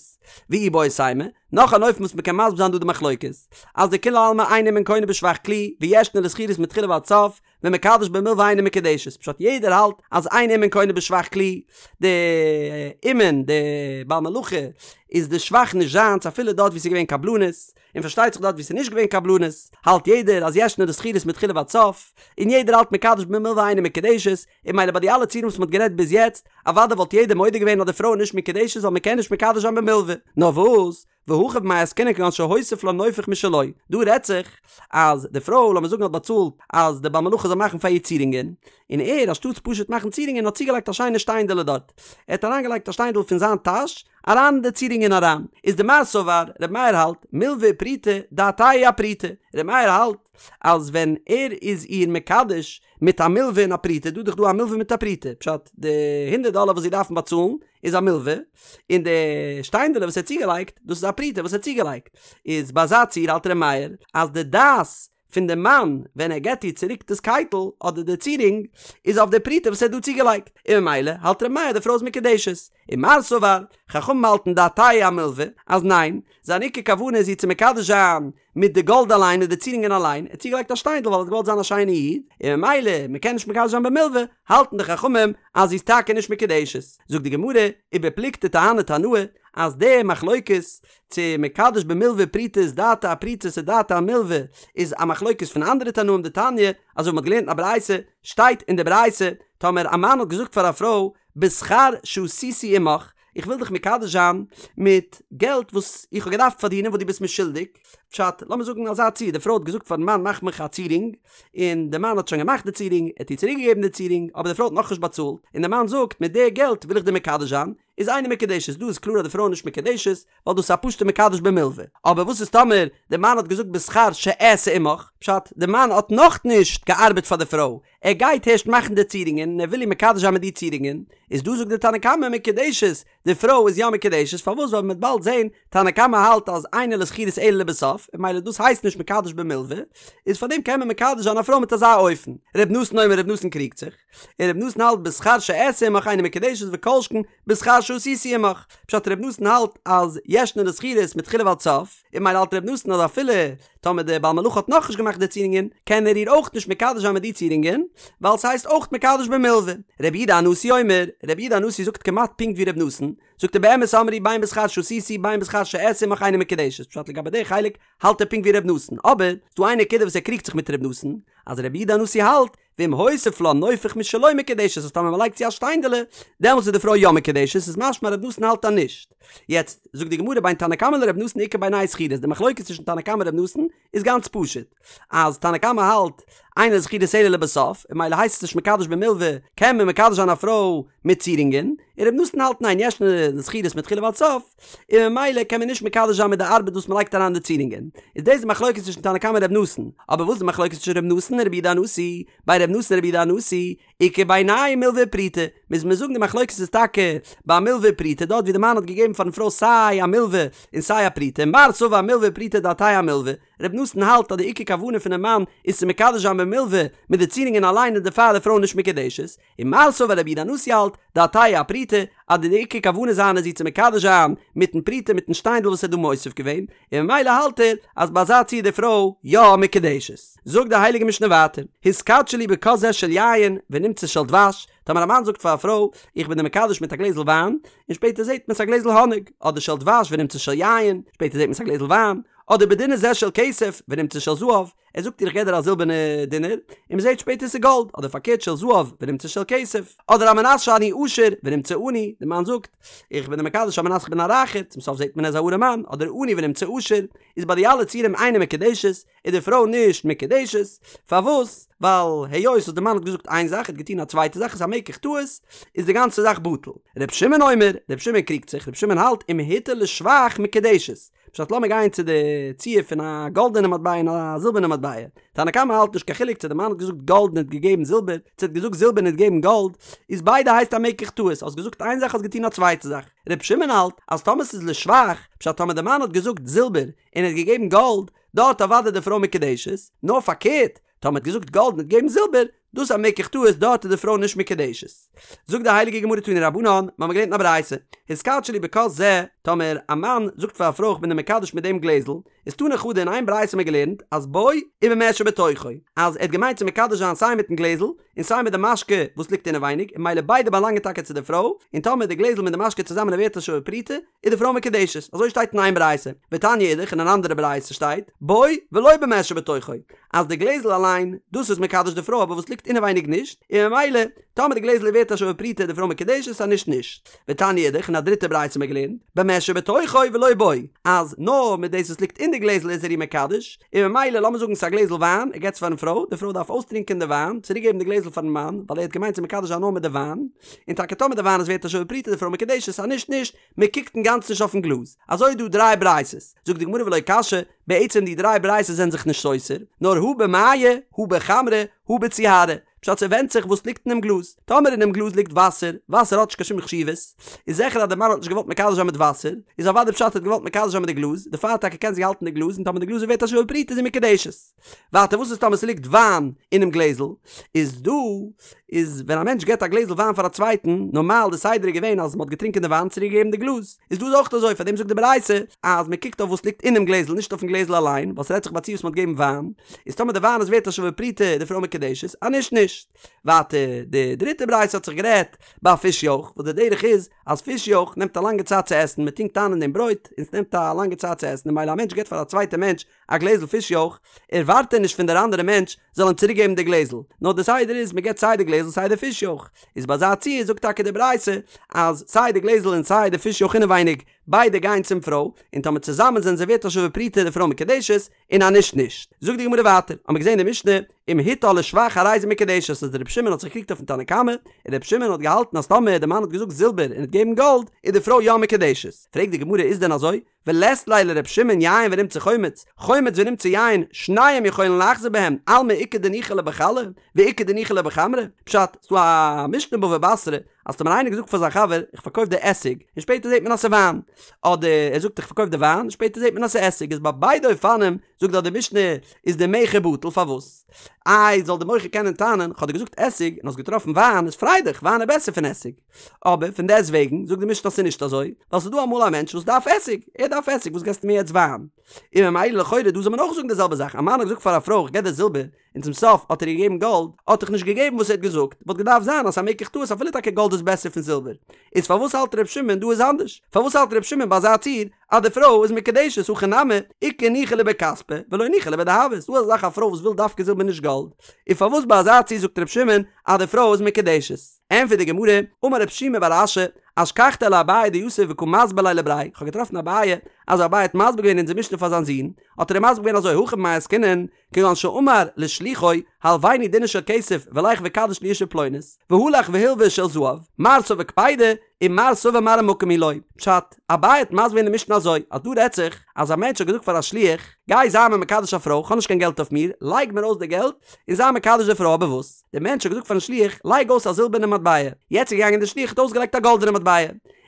Speaker 1: ואיבעית אימא, נאך אן אופן וואס מ'קען מסביר זיין דא די מחלוקת, אז דכולי עלמא אין אומן קונה בשבח כלי, וישנה לשכירות מתחילה ועד סוף, ומקדש במלוה אינה מקודשת, פשט יעדער האלט אז אין אומן קונה בשבח כלי, די אומן, די בעל מלאכה, איז די שבח נישט זיינס אפילו דארט ווי ס'איז געווען קבלנות, און פארשטייט זיך דארט ווי ס'איז נישט געווען קבלנות, האלט יעדער אז ישנה לשכירות מתחילה ועד סוף, און יעדער האלט מקדש במלוה אינה מקודשת, און ממילא ביי די אלע ציורים וואס מ'האט גערעדט ביז יעצט, אוודאי וואלט יעדער מודה געווען אז די פרוי איז נישט מקודשת ווייל מ'קען נישט מקדש זיין במלוה, נאר וואס? והכא במאי עסקינן כגון שהוסיף לה נופך משלו, דא רעדט זיך אז די פרוי לאמיר זאגן האט באצאלט אז די בעל מלאכה זאל מאכן פאר איר צירונגען, און ער אנשטאטס פשוט מאכן צירונגען האט צוגעלייגט א שיינע שטיינדעלע דארט, ער האט אריינגעלייגט א שטיינדל פון זיין טאש אריין אין די צירונגען אריין, איז דמר סבר, ר' מאיר האלט, מלוה ופרוטה, דעתיה אפרוטה, ר' מאיר האלט אז ווען ער איז איר מקדש מיט א מלוה און א פרוטה, דא איז דאך דא א מלוה מיט א פרוטה, פשט די הונדערט דאלער וואס זי דארפן באצאלן איז א מלוה, און די שטיינדעלע וואס ער האט צוגעלייגט, דאס איז א פרוטה וואס ער האט צוגעלייגט. איז ביי אזא ציור האלט ר' מאיר אז די דעת פון די מאן ווען ער געבט איר צוריק דאס קייטל אדער די צירונג איז אויף די פרוטה וואס ער האט דא צוגעלייגט, און ממילא האלט ר' מאיר אז די פרוי איז מקודשת. ומר סבר, חכמים האלטן דעתיה אמלוה, אז ניין, זיין עיקר כוונה איז איר צו מקדש זיין מיט די גאלד אליין מיט די צירונגען אליין, ער האט צוגעלייגט א שטיינדל ווייל ער האט געוואלט זיין א שיינע איד, און ממילא מען קען נישט מקדש זיין במלוה, האלטן די חכמים אז זי איז טאקע נישט מקודשת. זאגט די גמרא, ובפלוגתא דהני תנאי, אז די מחלוקת צו מקדש במלוה ופרוטה איז דעתיה אפרוטה צו דעתיה אמלוה איז א מחלוקת פון אנדערע תנאים דתניא, אזוי ווי מען האט געלערנט אין א ברייתא, שטייט אין די ברייתא, טאמער א מאן האט געזאגט פאר א פרוי, בשכר שעשיתי עמך, איך וויל דיך מקדש זיין מיט געלט וואס איך האב געדארפט פארדינען וואס דו ביסט מיר שולדיג, פשט, לאמיר זאגן אזא ציור, די פרוי האט געזאגט פארן מאן מאך מיך א צירונג, און די מאן האט שוין געמאכט די צירונג, ער האט איר צוריק געגעבן די צירונג, אבער די פרוי האט נאכנישט באצאלט, און די מאן זאגט מיט די געלט וויל איך דיר מקדש זיין, איז אינה מקודשת, דא איז קלאר אז די פרוי איז נישט מקודשת, ווייל דאס איז א פשוטע מקדש במלוה. אבער וואס איז טאמער די מאן האט געזאגט בשכר שאעשה עמך, פשט, די מאן האט נאכנישט געארבעט פאר די פרוי, ער גייט הערשט מאכן די צירונגען און ער וויל איר מקדש זיין מיט די צירונגען, איז דא זאגט די תנא קמא מקודשת, די פרוי איז יא מקודשת, פארוואס ווייל מ'וועט באלד זען, תנא קמא האלט אז אינה לשכירות אלא לבסוף, און ממילא דאס הייסט נישט מקדש במלוה, איז פארדעם קען מען מקדש זיין א פרוי מיט אזא אופן. ר' נתן אומר ר' נתן קריגט זיך, און ר' נתן האלט בשכר שאעשה עמך אינה מקודשת וכל שכן בשכר שעשיתי עמך, פשט ר' נתן האלט אז ישנה לשכירות מתחילה ועד סוף, און ממילא האלט ר' נתן אז אפילו טאמער דער בעל מלאכה האט נאכנישט געמאכט די צירונגען, קען ער איר אויך נישט מקדש זיין מיט די צירונגען, ווייל ס'הייסט אויך מקדש במלוה. רבי יהודה הנשיא אומר, רבי יהודה הנשיא זאגט כמעט פונקט ווי ר' נתן, זאגט ער באמת אמרו בין בשכר שעשיתי בין בשכר שאעשה עמך אינה מקודשת, פשט לגבי די חלק האלט ער פונקט ווי ר' נתן, אבער ס'דא איין נקודה וואס ער קריגט זיך מיט ר' נתן, אז רבי יהודה הנשיא האלט, ואם הוסיף לה נופך משלו מקודשת אז טאמער מ'לייגט צו א שטיינדעלע, דעמאלטס איז די פרוי יא מקודשת, איז משמע ר' נתן האלט אז נישט. יעצט, זאגט די גמרא בין תנא קמא לר' נתן איכא בינייהו שכירות, די מחלוקת צווישן תנא קמא און ר' נתן איז גאנץ פשוט, אז תנא קמא האלט אינה לשכירות אלא לבסוף, און ממילא הייסט עס נישט מקדש במלוה, קען מען מקדש זיין א פרוי מיט צירונגען, און ר' נתן האלט ניין ישנה לשכירות מתחילה ועד סוף, און ממילא קען מען נישט מקדש זיין מיט די ארבעט וואס מ'לייגט אריין די צירונגען. איז דאס די מחלוקת צווישן תנא קמא און ר' נתן. אבער וואס איז די מחלוקת צווישן ר' נתן און רבי יהודה הנשיא? בין ר' נתן און רבי יהודה הנשיא, איכא בינייהו מלוה ופרוטה. מוז מען זאגן די מחלוקת איז טאקע ביי מלוה ופרוטה, דארט ווי די מאן האט געגעבן פארן פרוי סיי א מלוה און סיי א פרוטה, מר סבר מלוה ופרוטה דעתיה אמלוה. ר' נתן האלט אז די עיקר כוונה פונעם מאן איז צו מקדש זיין במלוה מיט די צירונגען אליין און דערפאר איז די פרוי נישט מקודשת. ומר סבר רבי יהודה הנשיא האלט, דעתיה אפרוטה, אז די עיקר כוונה זיינע איז איר צו מקדש זיין מיטן פרוטה מיטן שטיינדל וואס ער האט דא מוסיף געווען, און ממילא האלט ער אז ביי אזא ציור איז די פרוי יא מקודשת. זאגט די הייליגע משנה ווייטער, התקדשי לי בכוס זה של יין ונמצא של דבש, טאמער א מאן זאגט פאר א פרוי, איך בין דיר מקדש מיט א גלעזל וויין, און שפעטער זעט מען ס'איז א גלעזל האניג, אדער של דבש ונמצא של יין, שפעטער זעט מען ס'איז א גלעזל וויין, אדער בדינר זה של כסף ונמצא של זהב, ער זאגט איר איך געב דיר א זילבערנע דינר, און מען זעט שפעטער ס'איז גאלד, אדער פארקערט של זהב ונמצא של כסף, אדער על מנת שאני עשיר ונמצא עני, די מאן זאגט, איך בין דיר מקדש על מנת איך בין א רייכער, צום סוף זעט מען ער איז א ארעמאן, אדער עני ונמצא עשיר, איז ביי די אלע ציורים אינה מקודשת, איז די פרוי נישט מקודשת, פארוואס? ווייל היות וואס די מאן האט געזאגט איין זאך, ער האט געטון א צווייטע זאך, איז א מקח טעות, איז די גאנצע זאך בטל. ר' שמעון אומר, ר' שמעון קריגט זיך, ר' שמעון האלט אם הטעה לשבח מקודשת, פשט לאמיר גיין צו די ציור פון א גאלדענע מטבע און א זילבערנע מטבע, תנא קמא האלט נישט קיין חילוק צו די מאן האט געזאגט גאלד און האט געגעבן זילבער, צו האט געזאגט זילבער און האט געגעבן גאלד, איז ביידע הייסט א מקח טעות, האסט געזאגט איין זאך האסט געטון א צווייטע זאך. ר' שמעון האלט אז טאמער ס'איז לשבח, פשט טאמער די מאן האט געזאגט זילבער און האט געגעבן גאלד, דארט אוודאי די פרוי מקודשת, נאר פארקערט, טאמער האט געזאגט גאלד און האט געגעבן זילבער, דאס איז א מקח טעות דארט איז די פרוי נישט מקודשת. זאגט די הייליגע גמרא תנו רבנן, מ'האמיר געלערנט אין א ברייתא, התקדשי לי בכוס זה, טאמער א מאן זאגט פאר א פרוי איך בין דיר מקדש מיט דעם גלעזל, איז תני חדא אין איין ברייתא האמיר געלערנט אז בו ובמה שבתוכו, אז ער האט געמיינט צו מקדש זיין סיי מיטן גלעזל און סיי מיט די משקה וואס ליגט אינעווייניג, און ממילא ביידע באלאנגען טאקע צו די פרוי, און טאמער די גלעזל מיט די משקה צוזאמען איז ווערט א שווה פרוטה, איז די פרוי מקודשת, אזוי שטייט אין איין ברייתא, ותניא אידך אין אן אנדערע ברייתא שטייט, בו ולא במה שבתוכו, אז די גלעזל אליין, דאס איז מקדש די פרוי אבער וואס ליגט אינעווייניג נישט, און ממילא, טאמער די גלעזל איז ווערט א שווה פרוטה איז די פרוי מקודשת אז נישט נישט. ותניא אידך אין א דריטע ברייתא האט מען געלערנט, במה שבתוכו ולא בו, אז נאר מיט דאס וואס ליגט אין די גלעזל איז ער איר מקדש, און ממילא לאמיר זאגן ס'איז א גלעזל וויין, ער געבט עס פארן פרוי, די פרוי דארף אויסטרינקען די וויין, צוריק געבן די גלעזל פארן מאן, ווייל ער האט געמיינט צו מקדש זיין נאר מיט די וויין, און טאקע טאמער די וויין איז ווערט א שווה פרוטה איז די פרוי מקודשת אז נישט נישט, מען קוקט אינגאנצן נישט אויפן גלאז. אזוי איז דא דריי ברייתות. זאגט די גמרא ולא קשיא, בעצם די דריי ברייתות זענען זיך נישט סותר, נאר הא במיא, הא בחמרא, הא בציהרא. פשט ס'ווענדט זיך וואס ליגט אינעם גלאז, טאמער אינעם גלאז ליגט וואסער, וואסער האט נישט קיין שום חשיבות, איז זיכער אז די מאן האט נישט געוואלט מקדש זיין מיט וואסער, איז אוודאי פשט ער האט געוואלט מקדש זיין מיט די גלאז, דערפאר טאקע קען זי האלטן די גלאז און טאמער די גלאז איז ווערט א שווה פרוטה איז זי מקודשת. ווייטער וואס איז טאמער ס'ליגט וויין אינעם גלעזל, איז דא איז ווען א מענטש געבט א גלעזל וויין פאר א צווייטן, נארמאל די סדר איז געווען אז מ'האט געטרינקען די וויין צוריק געגעבן די גלאז, איז דא איז אויך אזוי פארדעם זאגט די ברייתא אז מ'קוקט אויף וואס ליגט אינעם גלעזל נישט אויפן גלעזל אליין, ווייל ס'רעדט זיך ביי א ציור וואס מ'האט געגעבן וויין, איז טאמער די וויין איז ווערט א שווה פרוטה איז די פרוי מקודשת, אז נישט נישט. ווייטער די דריטע ברייתא האט זיך גערעדט ביי פיש יויך, וואס די דרך איז אז פיש יויך נעמט א לאנגע צייט צו עסן, מ'טונקט איין אין דעם ברויט און ס'נעמט א לאנגע צייט צו עסן און ממילא א מענטש געבט פאר א צווייטע מענטש א גלעזל פיש יויך, ערווארט ער נישט פון דער אנדערע מענטש זאל אים צוריק געבן די גלעזל, נאר די סדר איז מען געבט סיי די גלעזל סיי די פיש יויך, איז ביי אזא ציור זאגט טאקע די ברייתא אז סיי די גלעזל און סיי די פיש יויך אינעווייניג ביידע גייען צום פרוי, און טאמער צוזאמען זענען זיי ווערט א שווה פרוטה די פרוי מקודשת, און אז נישט נישט. זאגט די גמרא ווייטער, האמיר געזען אין די משנה, אם הטעה לשבח הרי זו מקודשת אז דער רבי שמעון האט זיך געקריגט אויפן תנא קמא, און רבי שמעון האט געהאלטן אז טאמער די מאן האט געזאגט זילבער און האט געגעבן גאלד, איז די פרוי יא מקודשת. פרעגט די גמרא איז דען אזוי? ולית ליה לר' שמעון יין ונמצא חומץ, חומץ ונמצא יין, שניהם יכולין לחזור בהם, אלמא איכא דניחא ליה בחלא, ואיכא דניחא ליה בחמרא, פשט, ס'דא א משנה בבא בתרא, אז טאמער איינער געזאגט פאר זיין חבר, איך פארקויף דיר עסיג, און שפעטער זעט מען אז ס'איז וויין, אדער ער זאגט איך פארקויף דיר וויין, און שפעטער זעט מען אז ס'איז עסיג, איז ביי ביידע אופנים, זאגט דארט די משנה, איז די מכר בטל, פארוואס? איי, זאל די מוכר קענען טענה'ן, כ'האב דיר געזאגט עסיג, און האסט געטראפן וויין, איז פריי דיך, וויין איז בעסער פון עסיג. אבער פון דעסט וועגן זאגט די משנה אז ס'איז נישט אזוי, ווייל ס'איז דא אמאל א מענטש וואס דארף עסיג, ער דארף עסיג, וואס געסטו מיר יעצט וויין? און ממילא לכאורה דא זאל מען אויך זאגן די זעלבע זאך, א מאן האט געזאגט פאר א פרוי איך געב דיר זילבער, און צום סוף האט ער איר געגעבן גאלד, האט דאך נישט געגעבן וואס ער האט געזאגט, וואלט געדארפט זיין אז ס'איז א מקח טעות אפילו טאקע גאלד איז בעסער פון זילבער. איז פארוואס האלט ר' שמעון דא איז אנדערש? פארוואס האלט ר' שמעון ביי אזא ציור אז די פרוי איז מקודשת הכא נמי, איכא ניחא ליה בכספא, ולא ניחא ליה בדהבא, ס'דא אזא זאך א פרוי וואס וויל דווקא זילבער נישט גאלד, און פארוואס ביי אזא ציור זאגט ר' שמעון אז די פרוי איז מקודשת? ענטפערט די גמרא, אמר רב שימי בר אשי, אשכחתיה לאביי דיתיב וקא מסביר ליה לבריה, איך האב געטראפן אביי, אז אביי האט מסביר געווען אונזער משנה פאר זיין זון, האט ער אים מסביר געווען אזוי, הכא במאי עסקינן, כגון שאמר לשלוחו, הלוויני דינר של כסף ולך וקדש לי אשה פלונית, והלך והלווה של זהב, מר סבר קפידא, ומר סבר מראה מקום היא לו. פשט, אביי האט מסביר געווען די משנה אזוי, אז דא רעדט זיך, אז א מענטש האט געזאגט פאר א שליח, גיי זיי מיר מקדש א פרוי, כ'האב נישט קיין געלט אויף מיר, לייג מיר אויס די געלט, און זיי מקדש די פרוי, אבער וואס? דער מענטש האט געזאגט פארן שליח, לייג אויס א זילבערנע מטבע. יעצט איז געגאנגען דער שליח האט אויסגעלייגט א גאלדענע מטבע.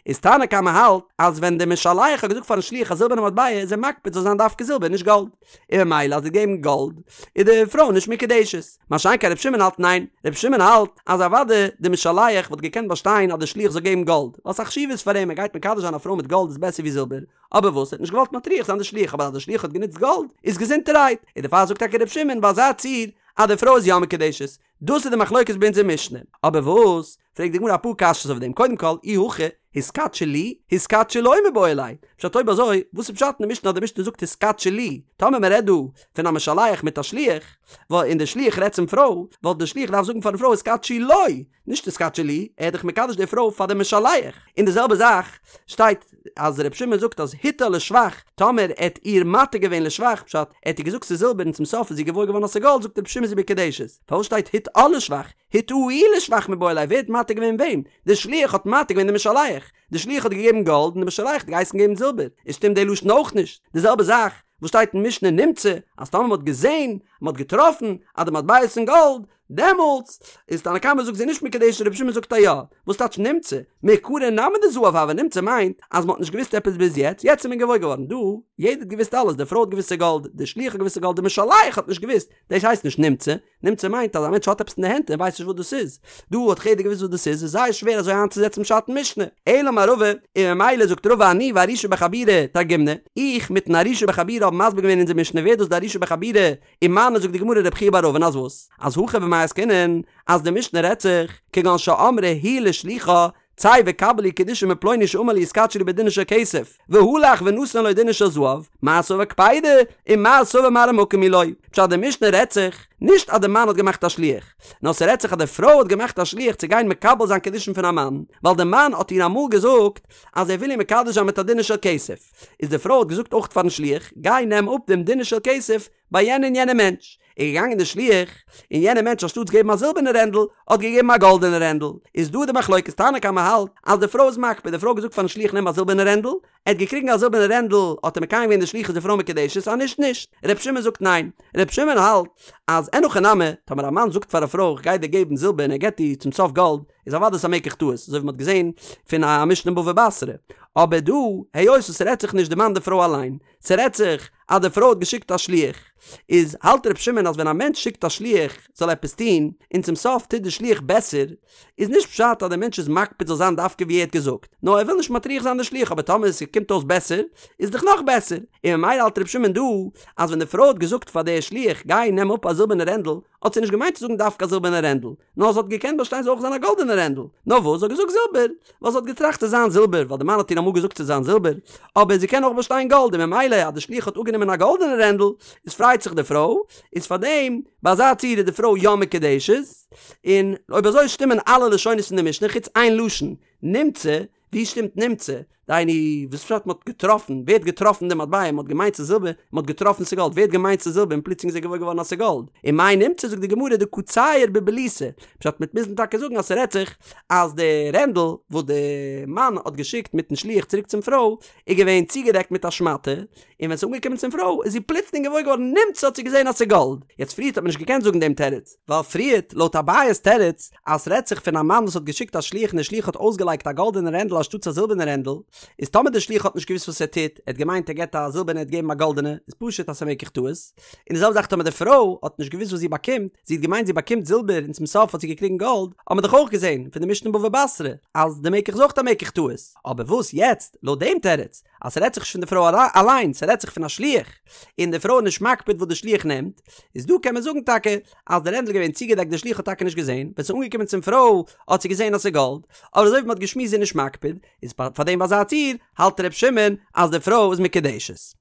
Speaker 1: איז תנא קמא האלט, אז ווען דער משלח האט געזאגט פארן שליח א זילבערנע מטבע איז ער מקפיד זאל זיין דווקא זילבער נישט גאלד. און ממילא אז ער האט געגעבן גאלד איז די פרוי נישט מקודשת. מה שאין כן ר' שמעון האלט ניין. ר' שמעון האלט אז אוודאי דער משלח וואלט געקענט באשטיין אז דער שליח זאל געבן גאלד, ווייל ס'איז א חשיבות פאר אים ער גייט מקדש זיין א פרוי מיט גאלד איז בעסער ווי זילבער. אבער וואס ער האט נישט געוואלט מטריח זיין די שליח אבער אז די שליח האט גענוצט גאלד איז געזונטערהייט. און דערפאר זאגט טאקע ר' שמעון ביי אזא ציור אז די פרוי איז יא מקודשת, דאס איז די מחלוקת ביי אונזער משנה. אבער וואס? פרעגט די גמרא אפאר קשיות אויף דעם, קודם כל, אי הכי, התקדשי לי, התקדשי לו מיבעי ליה. פשט אויב אזוי, וואס איז פשט אין די משנה אז די משנה זאגט התקדשי לי? טאמער מען רעדט דא פון א משלח מיט א שליח, און די שליח רעדט צום פרוי, וואלט די שליח געדארפט זאגן פארן פרוי התקדשי לו, נישט התקדשי לי, ער איז דאך מקדש די פרוי פאר די משלח. און די זעלבע זאך שטייט אז ר' שמעון זאגט אז הטעה לשבח, טאמער ער האט איר מטעה געווען לשבח, פשט, ער האט איר געזאגט ס'איז זילבער און צום סוף איז זי געוואויר געווארן אז ס'איז גאלד, זאגט ר' שמעון זי מקודשת. פארוואס שטייט הטעה לשבח? הטעהו לשבח מיבעי ליה, ווער האט מטעה געווען וועם? די שליח האט מטעה געווען די משלח. די שליח האט געגעבן גאלד און די משלח האט געהייסן געבן זילבער. איז שטימט די לשון אויך נישט. די זעלבע זאך וואס שטייט אין משנה נמצא, אז טאמער מ'האט געזען, מ'האט געטראפן, אז די מטבע איז פון גאלד, דעמאלטס איז תנא קמא זאגט זי נישט מקודשת רבי שמעון זאגט א יא, וואס טייטש נמצא? מעיקרא נמי דזהב הוה נמצא מיינט אז מ'האט נישט געוואוסט עפעס ביז יעצט, יעצט איז מען געוואויר געווארן דא, יעדער האט געוואוסט אלעס, די פרוי האט געוואוסט ס'איז גאלד, די שליח האט געוואוסט ס'איז גאלד, די משלח האט נישט געוואוסט, דאס הייסט נישט נמצא, נמצא מיינט אז א מענטש האט עפעס אין די הענט און ווייסט נישט וואס דאס איז, דא האט דאך יעדער געוואוסט וואס דאס איז, איז זייער שווער אזוי איינצוזעצן פשט אין משנה, אלא אמר רבא, און ממילא זאגט רבא אני וארישא בחבורה תרגימנא, איך מיטן ארישא בחבורה האבן מסביר געווען אונזער משנה ווער איז דאס די ארישא בחבורה, ומני זאגט די גמרא רב חייא בר אבין אז וואס? אז הכא במאי עסקינן אז די משנה רעדט זיך כגון שאמרה היא לשלוחה צא וקבל לי קידושין מפלוני שאמר לי התקדשי לי בדינר של כסף והלך ונתן לו דינר של זהב מר סבר קפידא ומר סבר מראה מקום היא לו פשט די משנה רעדט זיך נישט אז די מאן האט געמאכט א שליח נאר ס'רעדט זיך אז די פרוי האט געמאכט א שליח צו גיין מקבל זיין קידושין פון א מאן ווייל די מאן האט איר אמאל געזאגט אז ער וויל איר מקדש זיין מיט א דינר של כסף איז די פרוי האט געזאגט אויך פארן שליח, גיי נעם אפ דעם דינר של כסף ביי יענע און יענע מענטש. איז געגאנגען די שליח, און יענער מענטש אנשטאטס געבן א זילבערנע רענדל, האט געגעבן א גאלדענע רענדל. איז דא די מחלוקת, תנא קמא האלט אז די פרוי איז מקפיד, די פרוי האט געזאגט פארן שליח נעם א זילבערנע רענדל, ער האט געקריגן א זילבערנע רענדל, האט ער מקיים געווען די שליחות די פרוי מקודשת, אז נישט נישט. ר' שמעון זאגט ניין. ר' שמעון האלט אז אין הכי נמי, טאמער א מאן זאגט פאר א פרוי איך גיי דיר געבן זילבער און ער געבט איר צום סוף גאלד, איז אוודאי ס'א מקח טעות, אזוי ווי מ'האט געזען פון א משנה אין בבא בתרא. אבער דא, היות וואס ס'רעדט זיך נישט די מאן די פרוי אליין, ס'רעדט זיך אז די פרוי האט געשיקט א שליח, איז האלט ר' שמעון אז ווען א מענטש שיקט א שליח זאל עפעס טון, און צום סוף טוט די שליח בעסער, איז נישט פשט אז דער מענטש איז מקפיד זאל זיין דווקא ווי ער האט געזאגט, נאר ער וויל נישט מטריח זיין די שליח אבער טאמער ס'קומט אויס בעסער, איז דאך נאך בעסער. און ממילא האלט ר' שמעון דא, אז ווען די פרוי האט געזאגט פאר די שליח גיי נעם אפ א זילבערנע רענדל, האט זי נישט געמיינט צו זאגן דווקא א זילבערנע רענדל, נאר זי האט געקענט באשטיין ס'זאל אויך זיין א גאלדענע רענדל, נאר וואס זי האט געזאגט זילבער, ווייל זי האט געטראכט ס'זאל זיין זילבער, ווייל די מאן האט איר אמאל געזאגט ס'זאל זיין זילבער, אבער זי קען אויך באשטיין גאלד, און ממילא אז די שליח האט אפגענומען א גאלדענע רענדל, איז פרייט זיך די פרוי, איז פארדעם ביי אזא ציור איז די פרוי יא מקודשת, און אויב אזוי שטימען אלע לשונות פון די משנה חוץ איין לשון, נמצא, ווי שטימט נמצא? דהיינו, וואס פשט מ'האט געטראפן? ווער האט געטראפן די מטבע? מ'האט געמיינט ס'איז זילבער, מ'האט געטראפן ס'איז גאלד. ווער האט געמיינט ס'איז זילבער און פלוצלינג איז ער געוואויר געווארן אז ס'איז גאלד? און מאי נמצא זאגט די גמרא דקא צייר בבליתא. פשט מ'וועט מוזן טאקע זאגן אז ס'רעדט זיך אז די רענדל וואס די מאן האט געשיקט מיטן שליח צוריק צום פרוי איז געווען צוגעדעקט מיט א שמאטע, און ווען ס'איז אנגעקומען צום פרוי איז זי פלוצלינג געוואויר געווארן נמצא האט זי געזען אז ס'איז גאלד. יעצט פריערט האט מען נישט געקענט זאגן דעם תירוץ. ווייל פריערט, לויט אביי'ס תירוץ, אז ס'רעדט זיך פון א מאן וואס האט געשיקט א שליח און דער שליח האט אויסגעלייגט א גאלדענע רענדל אנשטאטס א זילבערנע רענדל, איז טאמער דער שליח האט נישט געוואוסט וואס ער טוט, ער האט געמיינט ער געבט א זילבערנע ער האט געגעבן א גאלדענע, איז פשוט אז ס'איז א מקח טעות. און די זעלבע זאך טאמער די פרוי האט נישט געוואוסט וואס זי באקומט, זי האט געמיינט זי באקומט זילבער און צום סוף האט זי געקריגן גאלד, האט מען דאך אויך געזען פון די משנה אין בבא בתרא אז די מקח איז אויך א מקח טעות. אבער וואס יעצט, לויט דעם תירוץ, אז ס'רעדט זיך נישט פון די פרוי אליין, ס'רעדט זיך פון א שליח, און די פרוי איז נישט מקפיד וואס די שליח נעמט, איז דא קען מען זאגן טאקע אז די רענדל איז געווען צוגעדעקט די שליח האט טאקע נישט געזען, ווען ס'איז אנגעקומען צום פרוי האט זי געזען אז ס'איז גאלד, אבער אזוי ווי מ'האט געשמועסט זי איז נישט מקפיד, איז פאר דעם ביי אזא ציור האלט ר' שמעון אז די פרוי איז מקודשת.